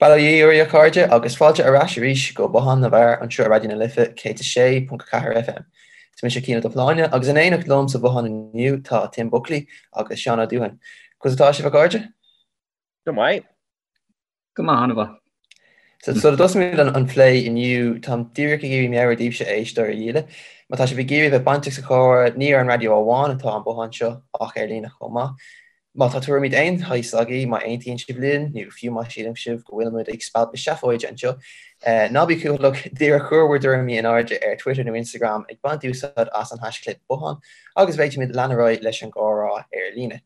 Bail ó Dhia oraibh a chairde agus fáilte ar ais arís go Bothán na bhFear anseo ar Raidió na Life 106.4 FM. Is mise Cian Ó Dubhshláine agus in éineacht liom sa bhothán inniu tá Tim Buckley agus Seán Ó Dúthain. Conas atá sibh a chairde? Go maith. Go maith, an-mhaith. So sula dtosaímid an plé inniu, táim díreach ag iarraidh meabhrú daoibhse a éisteoirí dhíle. Má tá sibh ag iarraidh bheith bainteach sa chomhrá, ní ar an raidió amháin atá an bothán seo ach ar líne chomh maith. Má tá tuairimí d'aon shaghas agaibh, má aontaíonn sibh linn, nó fiú má síleann sibh go bhfuilimid ag spalpadh seafóide anseo, ná bí cúthaileach, díreach cuir bhur dtuairimí in airde ar Twitter nó Instagram ag baint úsáid as an haischlib bothán agus féadfaimid lean ar aghaidh leis an gcomhrá ar líne.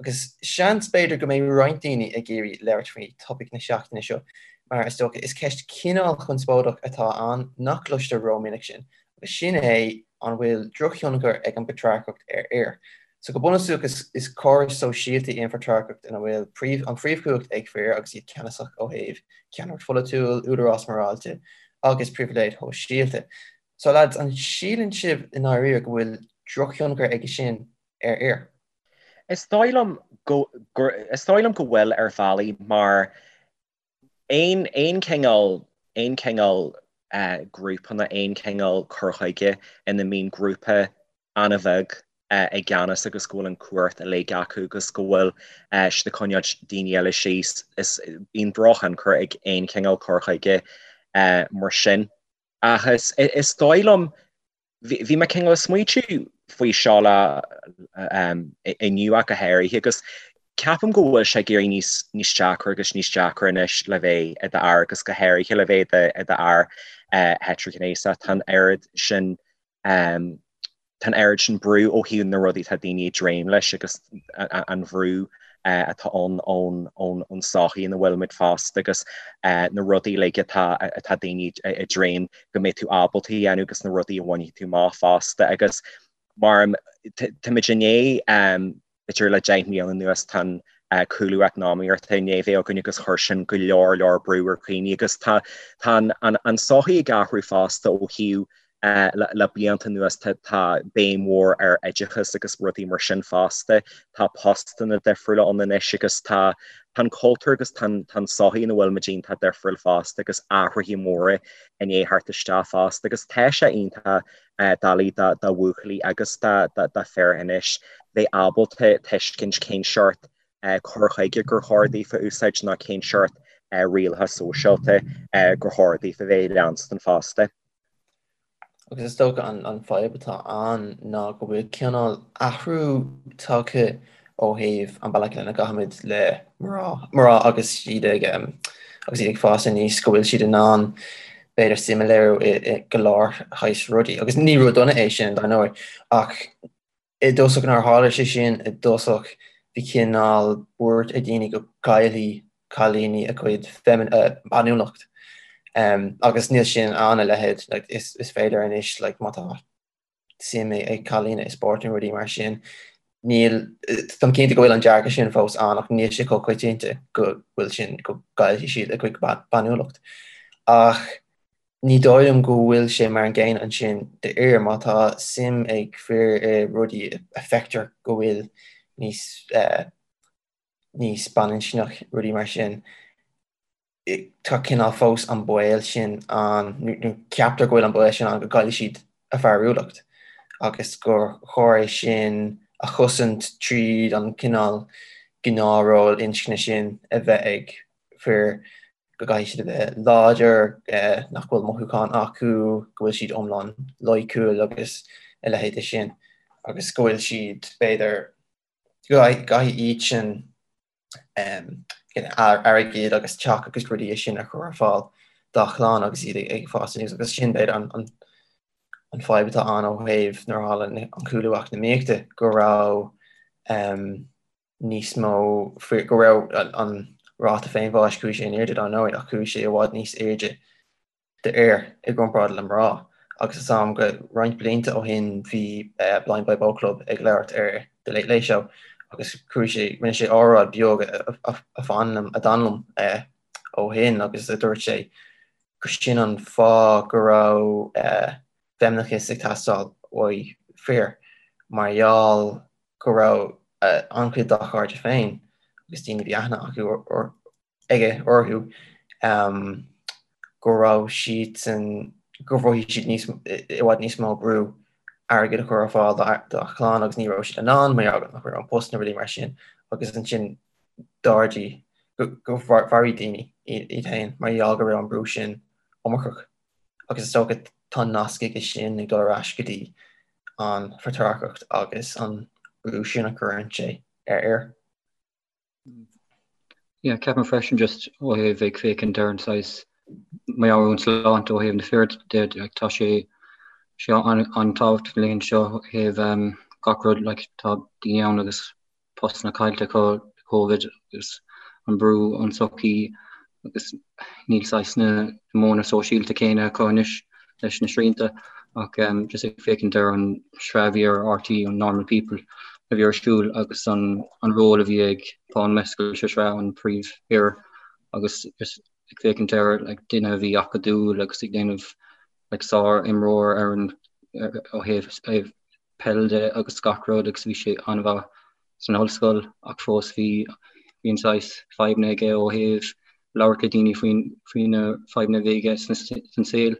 Agus seans, b'fhéidir, go mbeidh roinnt daoine ag iarraidh labhairt faoi topaic na seachtaine seo, mar is dócha, is ceist cineál chonspóideach atá ann nach gcloistear rómhinic sin, agus sin é an bhfuil drochthionchar ag an bpatrarcacht ar fhir. So go bunúsach, is córas sóisialta í an phatrarcacht ina bhfuil an phríomhchumhacht ag fir agus iad ceannasach ó thaobh ceannaireacht pholaitiúil, údarás morálta agus pribhléid shóisialta. So lads, an síleann sibh i ndáiríre go bhfuil drochthionchar aige sin ar fhir? Is dóigh liom go is dóigh liom go bhfuil ar bhealaí mar aon aon cineál aon cineál grúpanna aon cineál cur chuige ina mbíonn grúpa an-bheag i gceannas agus go bhfuil an cumhacht uilig acu agus go bhfuil siad ag coinneáil daoine eile síos is bíonn drochthionchar ag aon chineál cur chuige mar sin. Ach is is dóigh liom Bhí mé cineál ag smaoitiú faoi seo le inniu ach go háirithe agus ceapaim go bhfuil sé ag éirí níos níos deacra agus níos deacra anois le bheith i d'fhear agus go háirithe le bheith i d'fhear heitrighnéasach. Tá an oiread sin tá an oiread sin brú ó thaobh na rudaí atá daoine ag dréim leis agus an bhrú atá ann ón tsochaí ina bhfuilimid fosta agus na rudaí uilig atá atá daoine ag dréim go mbeidh tú ábalta a dhéanamh agus na rudaí a bhainfidh tú amach fosta agus mar táimid i ndiaidh b'fhéidir le 10 mbliana anuas tá an cúlú eacnamaíochta i ndiaidh bheith againn agus chuir sin go leor leor brú ar dhaoine agus tá tá an an tsochaí ag athrú fosta ó thaobh Le blianta anuas tá béim mhór ar oideachas agus rudaí mar sin fosta. Tá postanna difriúla ann anois agus tá an cultúr agus tá an tsochaí ina bhfuilimid iontach difriúil fosta agus athruithe móra i ndiaidh theacht isteach fosta agus tá sé iontach doiligh do bhuachaillí agus do fir anois bheith ábalta tuiscint cén seort cur chuige gur chóir daofa a úsáid nó cén seort rialacha sóisialta gur chóir daofa bheith ag leanstan fosta. Agus is dócha an fadhb atá ann ná go bhfuil cineál athrú tagtha ó thaobh an bealach lena gcaithimid le mná, mná agus iad ag agus iad ag fás aníos, go bhfuil siad in ann b'fhéidir suim a léiriú i go leor shaghas rudaí. Agus ní rud dona é sin, dar ndóigh, ach I dtosach nuair a tharla sé sin i dtosach bhí cineál buairt ag daoine go gcaillfidh cailíní a gcuid bainiúlacht agus níl sin ann a leithéid like is is féidir anois like má tá suim ag cailíní i spórt nó rudaí mar sin níl táim cinnte go bhfuil an dearcadh sin fós ann ach níl sé chomh coitianta go bhfuil sin go gcaillfidh siad a gcuid bainiúlacht ach Ní dóigh liom go bhfuil sé mar an gcéanna ansin d'fhir. Má tá suim ag fir i rudaí a feictear go bhfuil níos níos baininscneach, rudaí mar sin, tá cineál fós an baol sin ann, nó ceaptar go bhfuil an baol sin ann go gcaillfidh siad a bhfearúlacht agus gur chóir é sin a chosaint tríd an cineál gnáthról inscne sin a bheith ag fir. go gcaithfidh siad a bheith láidir, nach bhfuil mothúcháin acu, go bhfuil siad iomlán loighciúil agus a leithéid de sin, agus go bhfuil siad, b'fhéidir, go gcaithfidh iadsan airgead agus teach agus rudaí sin a chur ar fáil dá chlann agus iad ag fás aníos agus sin, b'fhéidir, an fadhb atá ann ó thaobh nuair a tharla an cúlú eacnamaíochta, go raibh níos mó go raibh an ráta féinbháis, chuaigh sé in airde dar ndóigh, ach chuaigh sé i bhfad níos airde d'fhir i gcomparáid le mná. Agus is am go roinnt blianta ó shin bhí Blind Boy Boatclub ag labhairt ar The Late Late Show agus chuaigh sé, rinne sé óráid beag a fan liom, a d'fhan liom ó shin agus a dúirt sé gur sin an fáth go raibh feimineachas ag teastáil uaidh fir mar gheall go raibh an-chuid dá chairde féin agus daoine a bhí aithne acu aige orthu Go raibh siadsan, gur mhothaigh siad níos, i bhfad níos mó brú airgead a chur ar fáil dá chlann agus ní raibh siad in ann mar gheall nach raibh an post nó rudaí mar sin agus ansin d'ardaigh, go mharaigh daoine iad féin mar gheall go raibh an brú sin iomarcach. Agus is dócha tá nasc aige sin ag dul ar ais go dtí an phatrarcacht agus an brú sin a chuireann sé ar fhir. Yeah, ceapaim freisin just ó thaobh ag féachaint ar an saghas meabhairshláinte ó thaobh na fir de, like, tá sé sé an-tábhachtach na laethanta seo ó thaobh um, gach rud like, tá daoine ann agus postanna caillte acu Covid agus an brú ón tsochaí agus níl saghas na modhanna sóisialta céanna acu anois leis na srianta ach just ag féachaint ar an sraith a bhí ar RTÉ, an Normal People a bhí ar siúl agus an ról a bhí ag Paul Mescal sa sraith, an príomhfhear agus just ag féachaint ar like duine a bhí acadúil agus ag déanamh like sár-imreoir ar an ó thaobh peil de agus gach rud agus bhí sé an-mhaith san ollscoil ach fós bhí bhí an saghas fadhbanna aige ó thaobh labhairt le daoine faoin faoi na fadhbanna a bhí aige san saol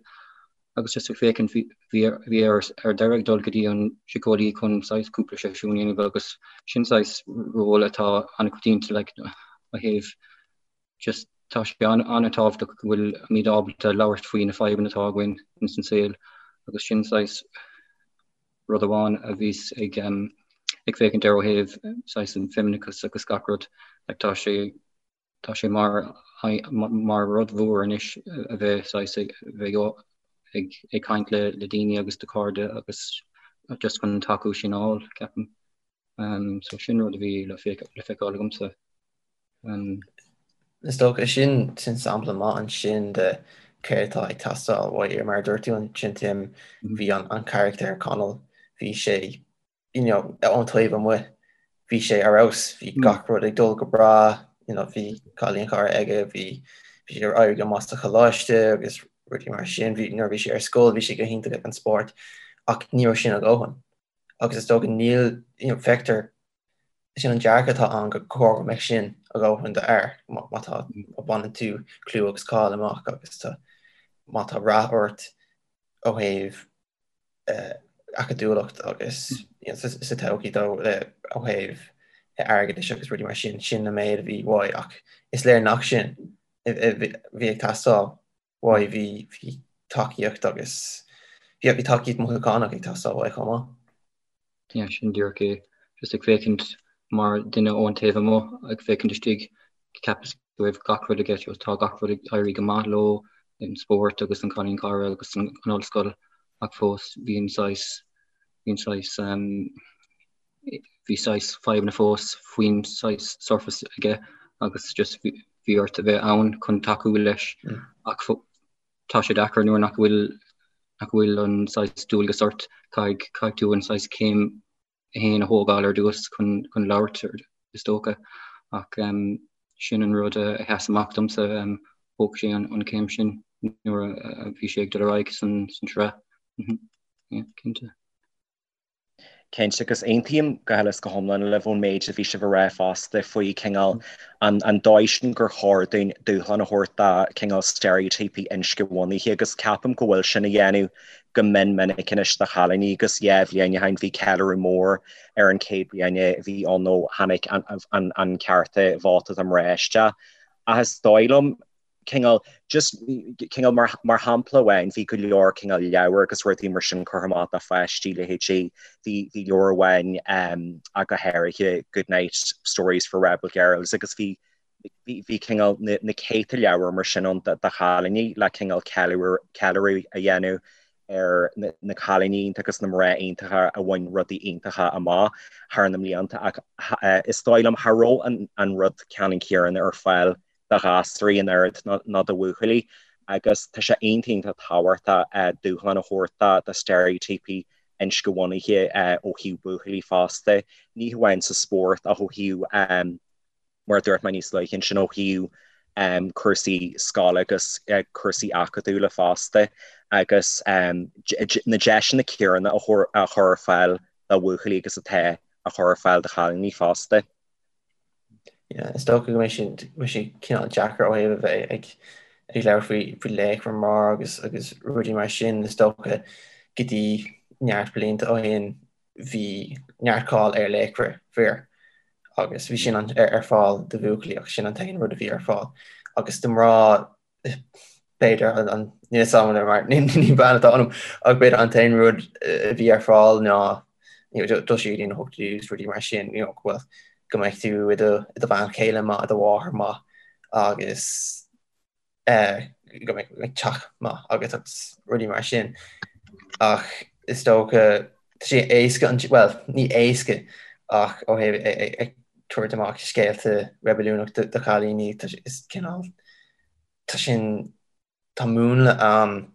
agus just ag féachaint bhí bhí bhí air ar deireadh ag dul go dtí an síceolaí chun saghas cúpla seisiún a dhéanamh agus sin saghas ról atá an-choitianta like ó thaobh just tá sé an-tábhachtach go bhfuil muid ábalta labhairt faoi na fadhbanna atá againn ins an saol agus sin saghas rud amháin a bhíos ag ag féachaint ar ó thaobh saghas an feimineachas agus gach rud like tá sé tá sé mar mar rud mhór anois a bheith saghas ag bheith ag ag caint le le daoine agus do chairde agus just chun an tacú sin a fháil ceapaim. Um, so sin rud a bhí le le feiceáil agamsa. Um, Is dócha sin sin sampla maith ansin de céard atá ag teastáil uaidh mar a dúirt tú ansin Tim bhí an an carachtar Connell bhí sé you know ón taobh amuigh bhí sé ar fheabhas bhí gach rud ag dul go breá you know bhí cailín cara aige bhí bhí sé ag éirí go maith sa choláiste agus rudaí mar sin bhí nuair a bhí sé ar scoil bhí sé go hiontach ag an spórt ach ní raibh sin a dhóthain agus is dócha níl you know feictear Sin an dearcadh atá ann gur chóir go mbeadh sin a dhóthain d'fhear má tá má bhaineann tú clú agus cáil amach agus tá má tá rath ort ó thaobh acadúlacht agus sa todhchaí dó le ó thaobh airgeadais agus rudaí mar sin, sin an méid a bhí uaidh ach is léir nach sin a bhí ag teastáil uaidh, bhí bhí tacaíocht agus bhí bhí tacaíocht mothúchánach ag teastáil uaidh chomh maith. Yeah, sin díreach é. Just ag féachaint mar duine ón taobh amuigh, ag féachaint istigh, cheapas go raibh gach rud aige, tá gach rud ag éirí go maith leo, an spórt agus an cailín cara agus an ollscoil, ach fós bhí an saghas, bhí an saghas, bhí saghas fadhbanna fós faoin saghas surface aige agus just bhí ort a bheith ann chun tacú leis ach tá sé deacair nuair nach bhfuil nach bhfuil an saghas dualgas ort, caithfidh caithfidh tú an saghas céim féin a thógáil ar dtús chun chun labhairt is dócha ach um, sin an rud a sheas amach domsa um, thóg sé an, an céim sin nuair a, a bhí sé ag dul ar aghaidh san, san sraith. Mm -hmm. yeah, cinnte. Cinnte, agus aontaím go huile is go hiomlán libh ón méid a bhí sibh a rá fosta faoi cineál an an dóigh sin gur chóir dúinn dúshlán a thabhairt do cineál steiréitíopaí inscnebhunaithe agus ceapaim go bhfuil sin á dhéanamh go mion minic anois do chailíní agus yeah bhliain ó shin bhí ceiliúradh mór ar an chéad bhliain a bhí ann ó tháinig an an cearta vóta do mná isteach ach is dóigh liom cineál, just, cineál mar, mar shampla amháin, bhí go leor cineál leabhar agus rudaí mar sin curtha amach do pháistí, leithéidí, bhí, bhí leabhar amháin um, ach go háirithe Goodnight Stories for Rebel Girls agus bhí, bhí, bhí cineál na, na céadta leabhar mar sin ann do, do chailíní le cineál ceiliúradh, ceiliúradh a dhéanamh ar na, na cailíní iontacha agus na mná iontacha a bhain rudaí iontacha amach thar na mblianta ach eh, is dóigh liom cha raibh an, an rud ceannann céanna ar fáil do ghasúraí an oiread ná do bhuachaillí agus tá sé iontach iontach tábhachtach dúshlán a thabhairt do steiréitíopaí inscnebhunaithe ó thaobh buachaillí fosta, ní hamháin sa spórt ach ó thaobh, mar a dúirt mé níos luaithe ansin, ó thaobh cúrsaí scoile agus cúrsaí acadúla fosta agus na deiseanna céanna a chur ar fáil do bhuachaillí agus atá á chur ar fáil do chailíní fosta. Yeah, is dócha go mbeidh sé, mbeidh sé cineál deacair ó thaobh a bheith ag. Ag labhairt faoi faoi laochra mná agus agus rudaí mar sin, is dócha go dtí neart blianta ó shin bhí neart cáil ar laochra fir agus bhí sin an ar fáil do bhuachaillí ach sin an t-aon rud a bhí ar fáil agus do mná b'fhéidir an níl a fhios agam mar ní bean atá ionam ach b'fhéidir an t-aon rud a bhí ar fáil ná dul siar go dtí na hochtóidí agus rudaí mar sin you know go bhfuil go mbeidh tú i do i do bhean chéile maith i do mháthair maith agus go mbeidh teach maith agat agus rudaí mar sin. Ach is dócha tá sé éasca an bhuel ní éasca ach ó thaobh ag tabhairt amach scéalta reibiliúnach do chailíní is cineál tá sin tá múnla ann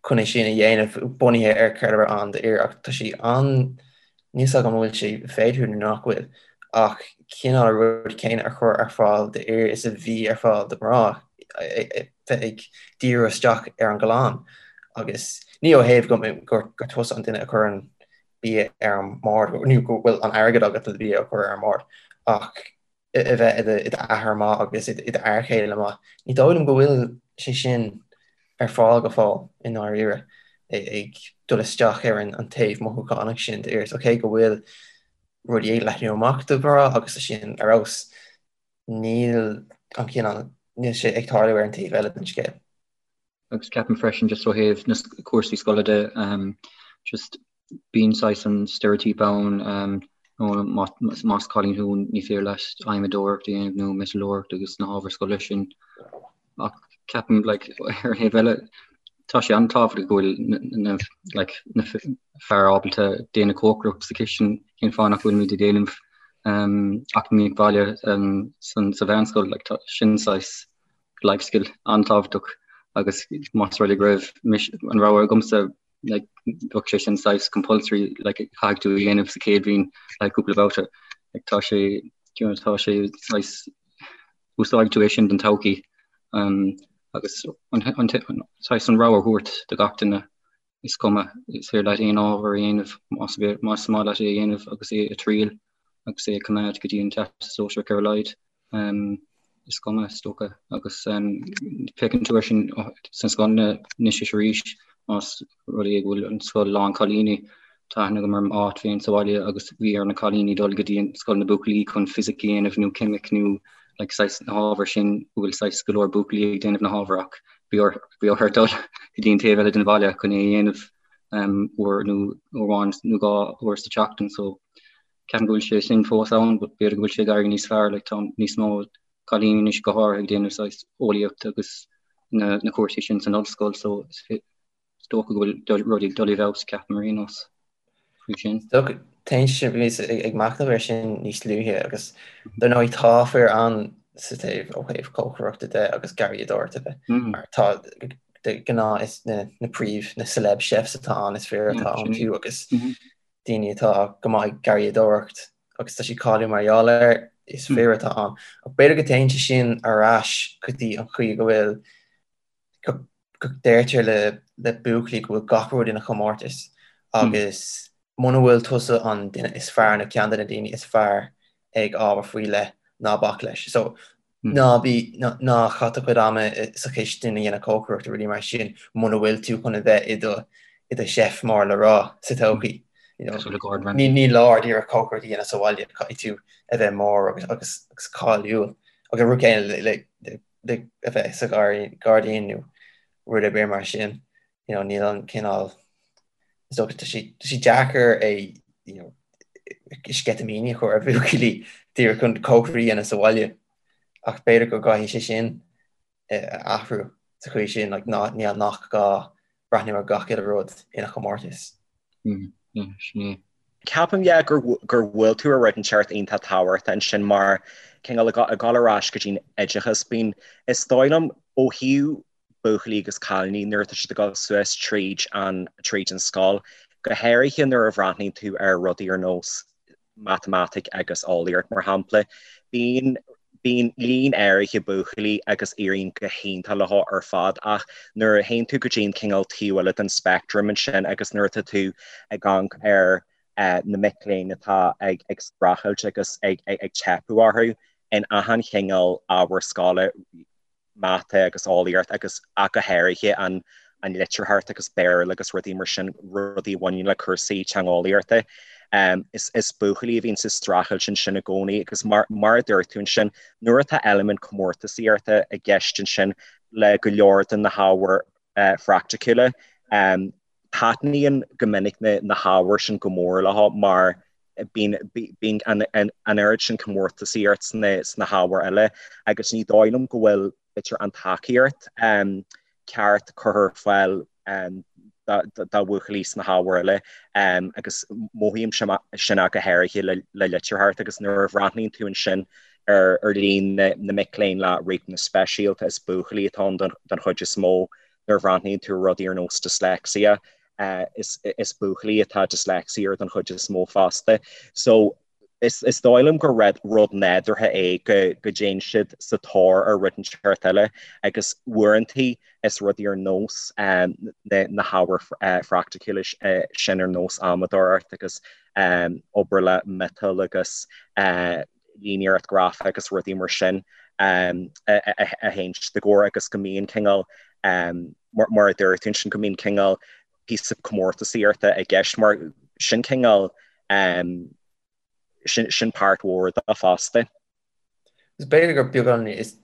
chun é sin a dhéanamh bunaithe ar céard a raibh ann d'fhir ach tá sé an níl a fhios agam an bhfuil sé féidir nó nach bhfuil ach cineál an rud céanna a chur ar fáil d'fhir is a bhí ar fáil do mhná bheith ag díriú isteach ar an gclann agus ní ó thaobh go gur tusa an duine a chuireann bia ar an mbord nó go bhfuil an airgead agat le bia a chur ar an mbord ach a bheith i d'athair maith agus i d'fhear céile maith. Ní dóigh liom go bhfuil sé sin ar fáil go fóill i ndáiríre, ag dul isteach ar an taobh mothúchánach sin d'fhir. So cé go bhfuil rudaí ag leathnú amach do mhná agus tá sin ar fheabhas, níl an cineál, níl sé ag tarlú ar an taobh eile den scéal. Agus ceapaim freisin just ó thaobh na cúrsaí scoile de, just bíonn saghas an steiréitíopa ann nó más cailín thú ní féidir leat adhmadóireacht a dhéanamh nó miotalóireacht agus na hábhair scoile sin. Ach ceapaim like ar an thaobh eile tá sé an-tábhachtach go bhfuil na like na fear ábalta déanamh cócaireacht sa chistin cén fáth nach bhfuilimid ag déanamh eacnamaíocht bhaile sa mheánscoil like tá sin saghas life skill an-tábhachtach agus más rud é go raibh an rogha agamsa like bheadh sé sin saghas compulsory like caithfidh tú a dhéanamh sa chéad bhliain like cúpla babhta like tá sé you know, tá sé saghas úsáidfidh tú é sin don todhchaí um, agus an, an, an, saghas an rogha a thabhairt do gach duine is cuma is féidir leat aon ábhar a dhéanamh más más maith leat é a dhéanamh agus é a triail agus é a choimeád go dtí an Teastas Sóisearach ar a laghad. Is cuma, is dócha, agus féachann tú air sin sna scoileanna anois is arís, más rud é go bhfuil an scoil lán cailíní, tá aithne agam ar m'áit féin sa bhaile agus bhí ar na cailíní dul go dtí an scoil na buachaillí chun fisic a dhéanamh nó ceimic nó like saghas na hábhair sin go bhfuil saghas go leor buachaillí ag déanamh na hábhair ach bhí bhí orthu dul go dtí an taobh eile den bhaile chun é a dhéanamh uair nó uair amháin nó dhá uair sa tseachtain so Ceapaim go bhfuil sé sin fós ann but b'fhéidir go bhfuil sé ag éirí níos fearr like tá níos mó cailíní anois go háirithe ag déanamh saghas eolaíocht agus na na cúrsaí sin san ollscoil so is dócha go bhfuil rudaí ag dul i bhfeabhas ceapaim ar aon nós faoi sin. Dócha téann sé bhíos ag machnamh air sin níos luaithe agus dar ndóigh tá fir ann sa taobh ó thaobh cócaireachta de agus garraíodóireachta de mar tá de ghnáth is na na príomh na celeb chefs atá ann is fir atá iontu agus daoine atá go maith ag garraíodóireacht agus tá siad cáiliúil mar gheall air, is fir atá ann. Ach b'fhéidir go dtéann sé sin ar ais go dtí an chaoi go bhfuil, go deirtear le le buachaillí go bhfuil gach rud ina chomórtas agus muna bhfuil tusa an duine is fearr nó ceann de na daoine is fearr ag ábhar faoi leith, ná bac leis. So Ná bí, ná caith do chuid ama sa chistin a dhéanamh cócaireacht nó rudaí mar sin muna bhfuil tú chun a bheith i do, i do chef mór le rá sa todhchaí. You know, Cosúil le Gordon Ramsay. Ní leor díreach cócaireacht a dhéanamh sa bhaile, caithfidh tú a bheith mór agus, agus, agus cáiliúil. Agus an rud céanna le, le, le, le a bheith sa ghairdín nó rud ar bith mar sin. You know, níl an cineál, is dócha, tá sé, tá sé deacair é, you know, sceitimíní a chur ar bhuachaillí díreach chun cócaireacht a dhéanamh sa bhaile ach b'fhéidir go gcaithfidh sé sin a athrú sa chaoi sin, like, ná, ní, nach gá breathnú ar gach uile rud ina chomórtas. Mm, yeah, sin é. Ceapaim, yeah, gur, gur bhuail tú ar rud inteacht iontach tábhachtach ansin mar cineál ag ag dul ar ais go dtí'n oideachas, bíonn, is dóigh liom, ó thaobh buachaillí agus cailíní nuair atá siad ag dul suas tríd an tríd an scoil, go háirithe nuair a bhreathnaíonn tú ar rudaí ar nós matamaitic agus eolaíocht mar shampla. Bíonn bíonn líon áirithe buachaillí agus éiríonn go hiontach leo ar fad ach nuair a théann tú go dtí an cineál taobh eile den speictream ansin agus nuair atá tú ag amharc ar na mic léinn atá ag ag streachailt agus ag ag ag teipeadh orthu in achan chineál ábhar scoile. Mata agus Eolaíocht agus ach go háirithe an an litearthacht agus Béarla agus rudaí mar sin, rudaí a bhaineann le cúrsaí teangeolaíochta. Is is buachaillí a bhíonn sa streachailt ansin i gcónaí agus mar mar a dúirt tú ansin, nuair atá eilimint comórtasaíochta i gceist ansin le go leor de na hábhair phraiticiúla, taitníonn go minic na na hábhair sin go mór leo mar bíonn bíonn an an oiread sin comórtasaíocht sna sna hábhair eile agus ní dóigh liom go bhfuil b'fhéidir an tacaíocht ceart curtha ar fáil do bhuachaillí sna hábhair eile agus mothaím sin ach go háirithe le le litearthacht agus nuair a bhreathnaíonn tú ansin ar ar líon na na mic léinn le riachtanais speisialta is buachaillí atá ann don don chuid is mó nuair a bhreathnaíonn tú ar rudaí ar nós dyslexia, is is buachaillí atá dyslexia air don chuid is mó fosta. So is is dóigh liom gur rud rud nádúrtha é go go dtéann siad sa tóir ar rud inteacht eile agus uaireantaí is rudaí ar nós na na hábhair phraiticiúla sin ar nós adhmadóireacht agus obair le miotal agus líníocht ghrafach agus rudaí mar sin a théann siad i gcomhair agus go mbíonn cineál, mar a dúirt tú ansin, go mbíonn cineál píosa comórtasaíochta i gceist mar sin cineál, sin páirt mhór de fosta. Is b'fhéidir gur beagán, is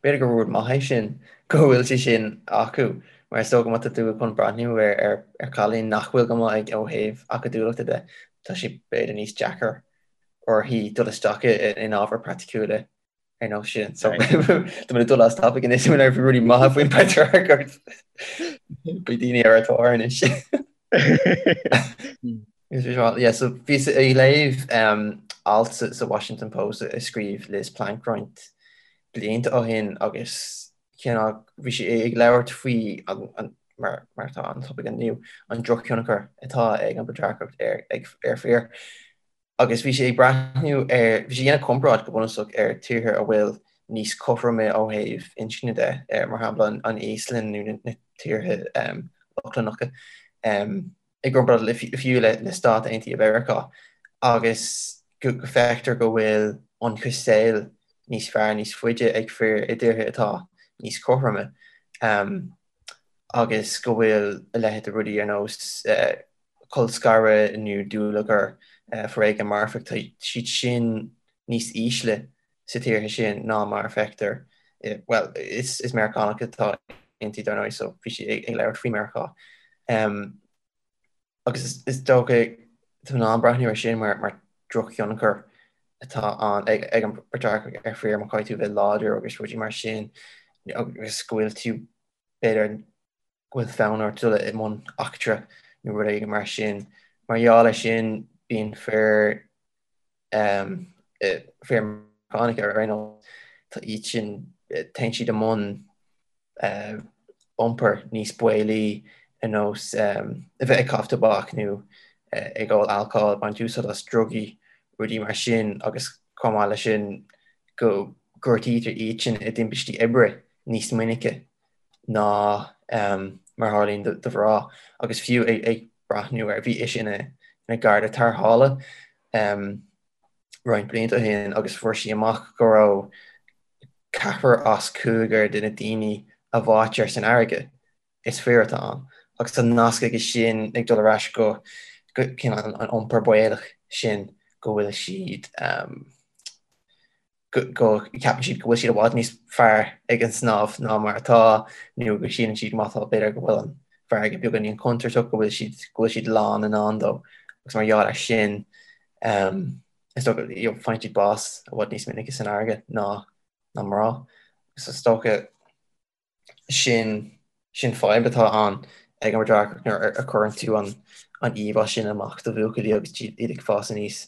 b'fhéidir gur rud maith é sin go bhfuil sé sin acu mar is dócha má tá tú chun breathnú ar ar chailín nach bhfuil go maith ó thaobh acadúlachta de, tá sé b'fhéidir níos deacair uirthi dul isteach in ábhair praiticiúla ar nós sin. So tá mé ag dul as topic anois mé ar rudaí maithe faoin bpatrarcacht. Beidh daoine ar ár dtóir anois. Yeah, so bhíos ag léamh um, alt sa, sa Washington Post a scríobh Liz Plank roinnt blianta ó shin agus cineál bhí sí ag labhairt faoi an, an, mar, mar atá an topic inniu, an drochthionchar atá ag an bpatrarcacht ar, ag, ar fir. Agus bhí sí ag breathnú ar, bhí sí ag déanamh comparáid go bunúsach ar tíortha a bhfuil níos cothroime ó thaobh inscne de, mar shampla an Íoslainn nó na tíortha Lochlannacha, i gcomparáid le fiú le Stáit Aontaithe Mheiriceá, agus go bhfeictear go bhfuil ionchas saoil níos fearr níos faide ag fir i dtíortha atá níos cothroime, agus go bhfuil a leithéid de rudaí ar nós colscaradh nó dúlagar, foréigean marfach, tá siad sin níos ísle sa tíortha sin ná mar a feictear, bhuel, is Meiriceánach atá inti dar ndóigh, so bhí sí ag labhairt faoi Meiriceá. Agus is dócha tá in ann breathnú ar sin mar drochthionchar atá ann ag an bpatrarcacht ar fir má caithfidh tú bheith láidir agus rudaí mar sin agus go bhfuil tú b'fhéidir go bhfuil fonn ort dul i mbun eachtra nó rud éigin mar sin. Mar gheall air sin, bíonn fir, fir Meiriceánacha ar aon nós, tá iad sin, téann siad i mbun iompar níos baolaí ar nós a bheith ag caitheamh tobac nó ag ól alcóil, ag baint úsáid as drugaí, rudaí mar sin agus chomh maith leis sin go gortaítear iad sin i dtimpistí oibre níos minice. ná mar a tharlaíonn do mhná agus fiú ag breathnú ar, bhí ise ina garda tarrthála roinnt blianta ó shin agus fuair sí amach go raibh ceathrar as cúigear de na daoine a bháitear san fharraige, is fir atá ann. Agus tá nasc aige sin ag dul ar ais go cineál an iompar baolach sin go bhfuil siad go gceapann siad go bhfuil siad i bhfad níos fearr ag an snámh ná mar atá, nó go síleann siad má tá, b'fhéidir go bhfuil an fharraige beagáinín contúirteach, go bhfuil siad, go bhfuil siad lán i ndán dó. Agus mar gheall air sin, is dócha, you know, faigheann siad bás i bhfad níos minice san fharraige ná, ná mná. Agus is dócha, sin, sin fadhb atá ann ag an bpatrarcacht nuair a chuireann tú an, an íomhá sin amach do bhuachaillí agus iad ag fás aníos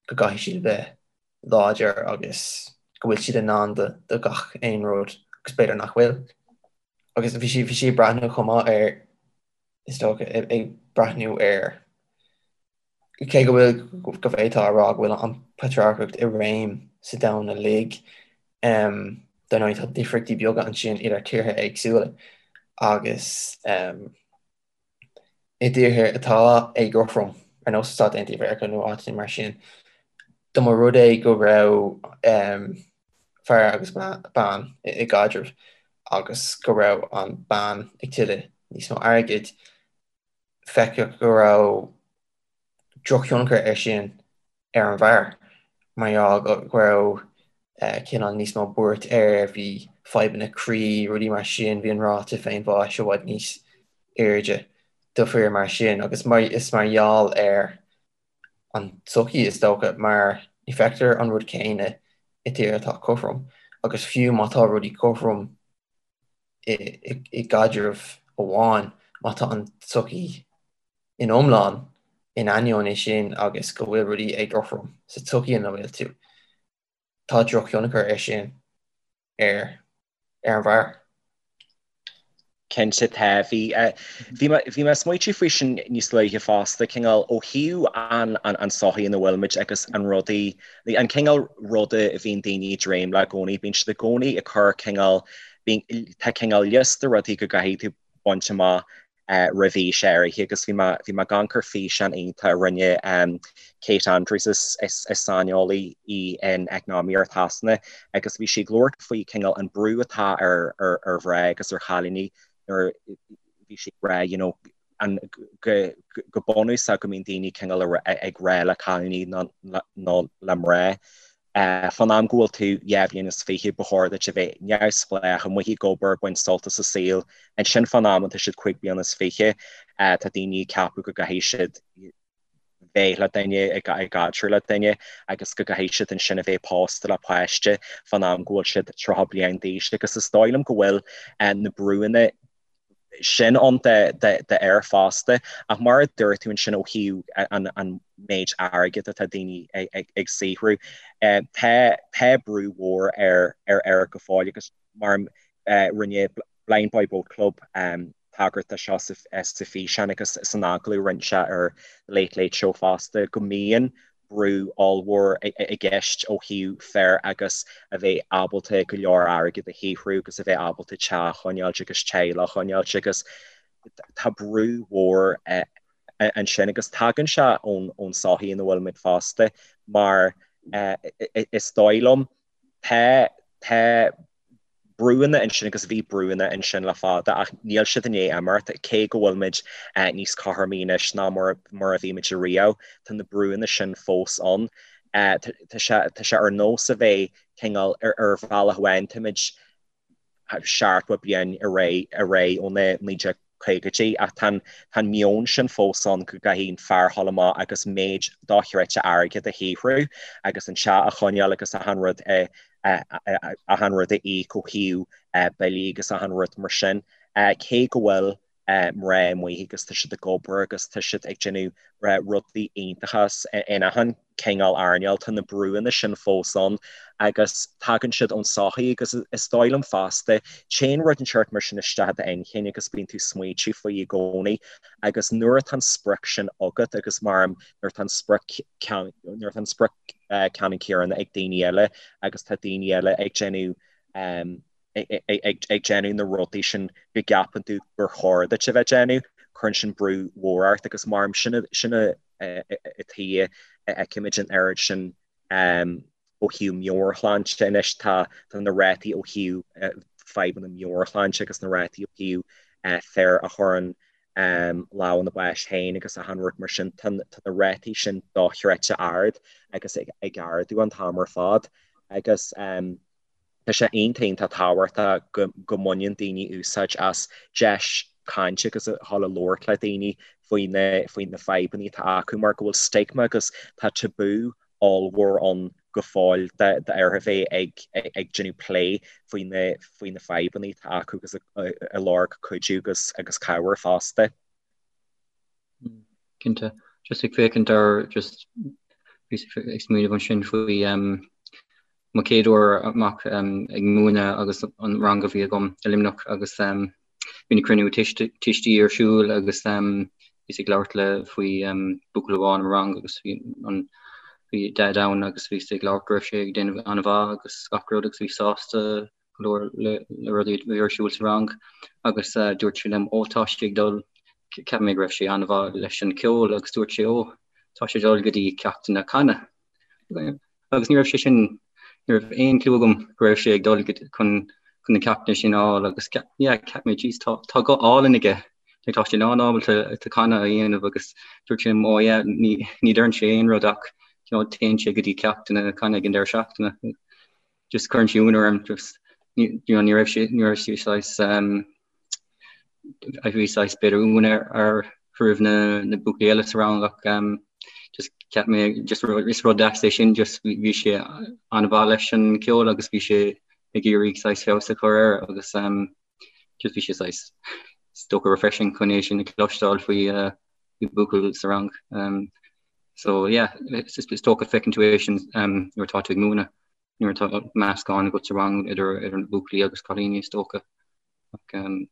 go gcaithfidh siad a bheith láidir agus go bhfuil siad in ann do, do gach aon rud agus b'fhéidir nach bhfuil. Agus bhí sí, bhí sí ag breathnú chomh maith ar, is dócha, ag breathnú ar Cé go bhfuil, go bhféadfá a rá go bhfuil an patrarcacht i réim sa domhan uilig, dar ndóigh tá difríochtaí beaga ansin idir tíortha éagsúla agus i dtíortha atá éagothrom, ar nós na Stáit Aontaithe Mheiriceá nó áiteanna mar sin, dá mba rud é go raibh. fear agus bean i gcaidreamh agus go raibh an bean ag tuilleamh níos mó airgid, feiceadh go raibh drochthionchar air sin ar an bhfear, mar gheall go raibh cineál níos mó buairt air, bhí fadhbanna croí, rudaí mar sin, bhí an ráta féinbháis i bhfad níos airde do fir mar sin agus is mar gheall ar an tsochaí is dócha mar ní feictear an rud céanna i dtír atá cothrom agus fiú má tá rudaí cothrom i gcaidreamh amháin, má tá an tsochaí in iomlán in ainneoin é sin agus go bhfuil rudaí éagothrom sa tsochaí ina bhfuil tú, tá drochthionchar air sin ar ar an bhfear. Cinnte tá. Bhí bhí mé bhí mé ag smaoitiú faoi sin níos luaithe fosta, cineál ó thaobh an an an sochaí ina bhfuil muid agus an rudaí, an cineál ruda a bhíonn daoine ag dréim le i gcónaí, bíonn siad i gcónaí ag cur cineál, bíonn, tá cineál liosta rudaí go gcaithfidh tú baint amach roimh aois áirithe agus bhí mé bhí mé ag amharc ar físeán iontach a rinne Kate Andrews is is is saineolaí í in eacnamaíocht Shasana agus bhí sí ag labhairt faoi cineál an brú atá ar ar ar mhná agus ar chailíní nuair bhí sí ag rá you know an go go bunúsach go mbíonn daoine cineál ag rá le cailíní nó nó le mná Fán am go bhfuil tú 22 bhliain, ba chóir duit a bheith neamhspleách, amuigh ag obair, ag baint sult as an saol. Ansin fán am atá siad 25 bliana, tá daoine ag ceapadh go gcaithfidh siad bheith le duine, i gcaidreamh le duine agus go gcaithfidh siad ansin a bheith pósta le páiste fán am go bhfuil siad 30 bliain d'aois. Agus is dóigh liom go bhfuil na brúanna sin ann d'fhir fosta. Ach mar a dúirt tú ansin ó thaobh an méid airgid atá daoine ag saothrú, tá brú mhór ar fhir go fóill agus mar rinne Blindboy Boatclub tagairt do seo sa físeán agus san agallamh a rinne sé ar The Late Late Show fosta, go mbíonn brú ollmhór i gceist ó thaobh fir agus a bheith ábalta go leor airgid a shaothrú agus a bheith ábalta teach a choinneáilt agus teaghlach a choinneáilt agus tá brú mhór ansin agus tagann sé ón sochaí ina bhfuil muid fosta mar is dóigh liom tá tá brúanna ansin agus bhí brúanna ansin le fada ach níl siad i ndiaidh imeacht, cé go bhfuil muid níos cothromaí anois ná mar a bhí muid ariamh, tá na brúanna sin fós ann. Tá sé tá sé ar nós a bheith cineál ar ar bhealach amháin táimid 70 bliain ar aghaidh ar aghaidh ó na 1950idí ach tá an tá an meon sin fós ann go gcaithfidh an fear dhul amach agus méid dochreidte airgid a shaothrú agus an teach a choinneáil agus achan rud a achan rud a íoc ó thaobh billí agus achan rud mar sin. Cé go bhfuil mná amuigh agus tá siad ag obair agus tá siad ag déanamh rudaí iontacha in achan cineál earnáil, tá na brúanna sin fós ann agus tagann siad ón sochaí agus is dóigh liom fosta, téann rud inteacht mar sin isteach i d'inchinn agus bíonn tú ag smaoitiú faoi i gcónaí agus nuair atá an sprioc sin agat agus mar nuair atá an sprioc nuair atá an sprioc ceannann céanna ag daoine eile agus tá daoine eile ag déanamh ag déanamh na rudaí sin go gceapann tú gur chóir duit a bheith ag déanamh, cuireann sin brú mhór ort agus mar sin sin an tuige a fheicimid an oiread sin ó thaobh meabhairshláinte anois tá na rátaí ó thaobh fadhbanna meabhairshláinte agus na rátaí ó thaobh fir a chuireann lámh ina bpáis féin agus achan rud mar sin, tá na rátaí sin dochreidte ard agus ag ardú an t-am ar fad agus Tá sé iontach iontach tábhachtach go go mbaineann daoine úsáid as deis cainte agus a dhul a labhairt le daoine faoi na faoi na fadhbanna atá acu mar go bhfuil stigma agus tá tabú ollmhór ann go fóill d'fhear a bheith ag ag déanamh plé faoi na faoi na fadhbanna atá acu agus ag lorg cuidiú agus agus cabhair fosta. Cinnte. Just ag féachaint ar just bhíos ag smaoineamh ansin faoi mo chéad uair amach ag múineadh agus an rang a bhí agam i Luimneach agus bhí na cruinniú tuistí ar siúl agus bhíos ag labhairt le faoi buachaill amháin i mo rang agus bhí an bhí daid ann agus bhíos ag labhairt go raibh sé ag déanamh an-mhaith agus gach rud agus bhí sásta go leor le rudaí a bhí ar siúl sa rang agus dúirt sé liom ó tá sé ag dul, cheap mé go raibh sé an-mhaith leis an cheol agus dúirt sé ó tá sé ag dul go dtí ceachtanna canadh. Agus ní raibh sé sin. Ní raibh aon clue agam go raibh sé ag dul chun chun na ceachtanna sin a fháil agus yeah cheap mé jeez tá tá guth álainn aige like tá sé lán-ábalta to canadh a dhéanamh agus dúirt sé liom oh yeah ní ní deireann sé aon rud ach you know téann sé go dtí ceachtanna canadh ag an deireadh seachtaine just cuireann sé ionadh orm just ní you know ní raibh sé ní raibh sé saghas um bhí saghas b'fhéidir ionadh ar roimh na na buachaillí eile sa rang ach um just cheap mé just is rud deas é sin just bhí sé an-mhaith leis an ceol agus bhí sé ag iarraidh saghas feabhas a chur air agus um just bhí sé saghas is dócha refreshing chun é sin a chloisteáil faoi uh, faoi buachaill sa rang. Um, so yeah, is, is dócha feiceann tú é sin um, nuair atá tú ag múineadh nuair atá meascán agat sa rang idir idir na buachaillí agus cailíní is dócha. Ach um,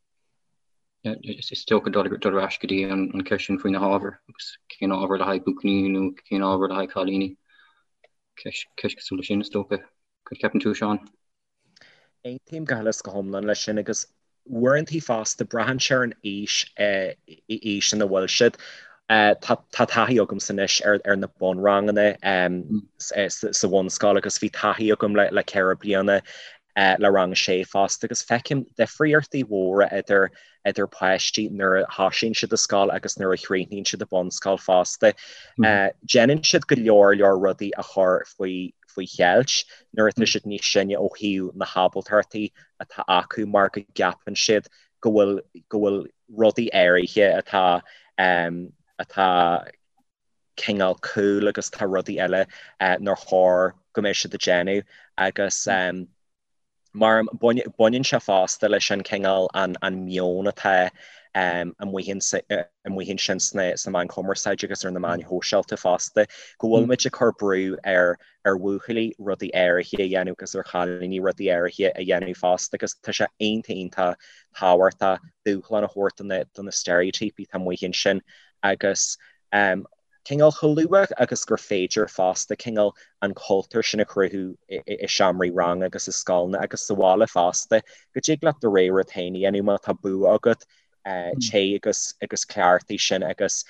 is dócha dul dul ar ais go dtí an an ceist sin faoi na hábhair agus cén ábhar le haghaidh buachaillí nó cén ábhar le haghaidh cailíní. Ceist ceist cosúil leis sin is dócha. Cad ceapann tú Seán? Aontaím go huile is go hiomlán leis sin agus uaireantaí fosta braitheann sé ar an aois aois ina bhfuil siad. Tá taithí agamsa anois ar na bunranganna sa bhunscoil agus bhí taithí agam le 4 bliana le rang a sé fosta agus feicim difríochtaí mhóra idir idir páistí nuair a thosaíonn siad i scoil agus nuair a chríochnaíonn siad i bunscoil fosta. Déanann siad go leor leor rudaí a chur faoi faoi cheilt nuair atá siad níos sine ó thaobh na hábaltachtaí atá acu mar go gceapann siad go bhfuil go bhfuil rudaí áirithe atá atá cineál cool agus tá rudaí eile nár chóir go mbeadh siad ag déanamh agus mar baineann sé fosta leis an cineál an meon atá amuigh ansin sna meáin chumarsáide agus ar na meáin shóisialta fosta, go bhfuil muid ag cur brú ar ar bhuachaillí rudaí áirithe a dhéanamh agus ar chailíní rudaí áirithe a dhéanamh fosta agus tá sé iontach iontach tábhachtach dúshlán a thabhairt do na steiréitíopaí atá amuigh ansin agus cineál chomh luath agus gur féidir fosta cineál an cultúr sin a chruthú i seomraí ranga agus i scoileanna agus sa bhaile fosta, go dtig leat do rogha rud féin a dhéanamh má tá bua agat, téigh agus agus cleachtaigh sin agus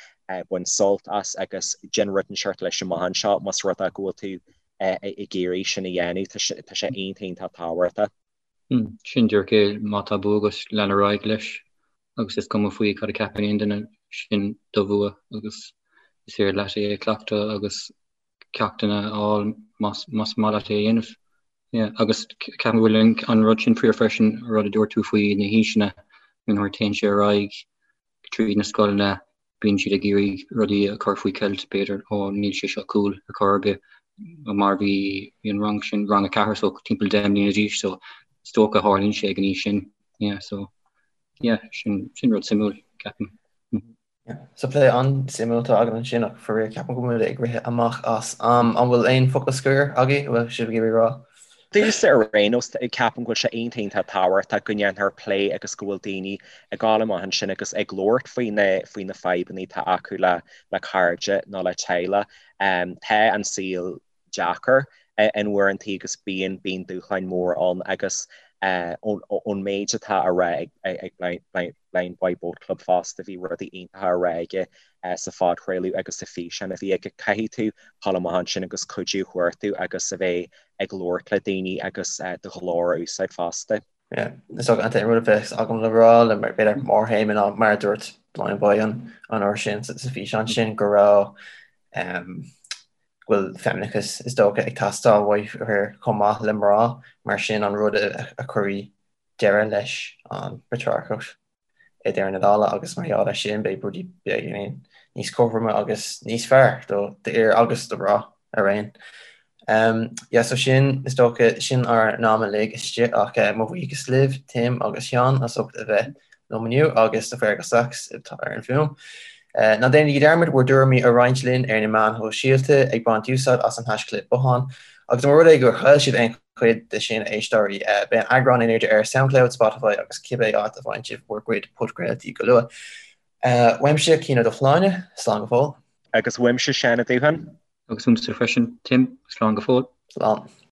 bain sult as agus déan rud inteacht leis amach anseo más rud é go bhfuil tú ag iarraidh sin a dhéanamh, tá sé iontach iontach tábhachtach. Sin díreach é, má tá bua agat, lean ar aghaidh leis agus is cuma faoi cad a cheapann aon duine, sin do bhua agus is féidir leat é a chleachtadh agus ceachtanna a fháil más maith leat é a dhéanamh. Yeah, agus ceapaim go bhfuil an rud sin fíor freisin, rud a dúirt tú faoi na haoiseanna, nuair a théann sé ar aghaidh tríd na scoileanna, bíonn siad ag iarraidh rudaí a chur faoi cheilt, b'fhéidir, ó níl sé seo cool ar chor ar bith, mar bhí an rang sin, rang a ceathair, so timpeall 10 mbliana d'aois, so is dócha tharlaíonn sé ag an aois sin, yeah, so yeah, sin, sin rud suimiúil, ceapaim. Yeah, so plé an-suimiúil atá againn ansin ach faraor ceapaim go bhfuil muid ag rith amach as am. An bhfuil aon focal scoir agaibh a bhfuil sibh ag iarraidh a rá? Domsa ar aon nós, ceapaim go bhfuil sé iontach iontach tábhachtach go ndéanfar plé agus go bhfuil daoine ag gabháil amach ansin agus ag labhairt faoi na faoi na fadhbanna atá acu le le cairde nó le teaghlach. Tá an saol deacair in uaireantaí agus bíonn bíonn dúshláin mhóra ann agus ón méid atá á rá ag Blind Boy Boat Club fosta, bhí rudaí iontacha á rá aige sa phodchraoladh agus sa físeán a bhí aige. Caithfidh tú dul amach ansin agus cuidiú a chuartú agus a bheith ag labhairt le daoine agus do ghlór a úsáid fosta. Yeah, is dócha an t-aon rud a bheas agam le rá le mar b'fhéidir mórthéama ná mar a dúirt Blind Boy an an uair sin sa físeán sin go raibh um, go bhfuil feimineachas is dócha ag teastáil uaidh fir chomh maith le mná mar sin an rud a, a chuirfidh deireadh leis an bpatrarcacht. i ndeireadh na dála agus mar gheall air sin beidh rudaí beagáinín níos cothroime agus níos fearr do d'fhir agus do mhná araon. Um, yeah, so sin is dócha sin ár n-am uilig istigh ach uh, mo bhuíochas libh Tim agus Seán as ucht a bheith liom inniu agus do Fergal Sachs atá ar an bhfuaim. Uh, ná déanaigí dearmad bhur dtuairimí a roinnt linn ar na meáin shóisialta ag baint úsáid as an haischlib bothán agus más rud é gur chaill sibh aon chuid de sin, a éisteoirí. Beidh an eagrán in airde ar Soundcloud, Spotify agus cibé áit a bhfaigheann sibh bhur gcuid podchraoltaí go luath. Uaimse, Cian Ó Dubhshláine, slán go fóill. Agus uaimse, Seán Ó Dúcháin. Agus uaimse freisin, Tim, slán go fóill. Slán.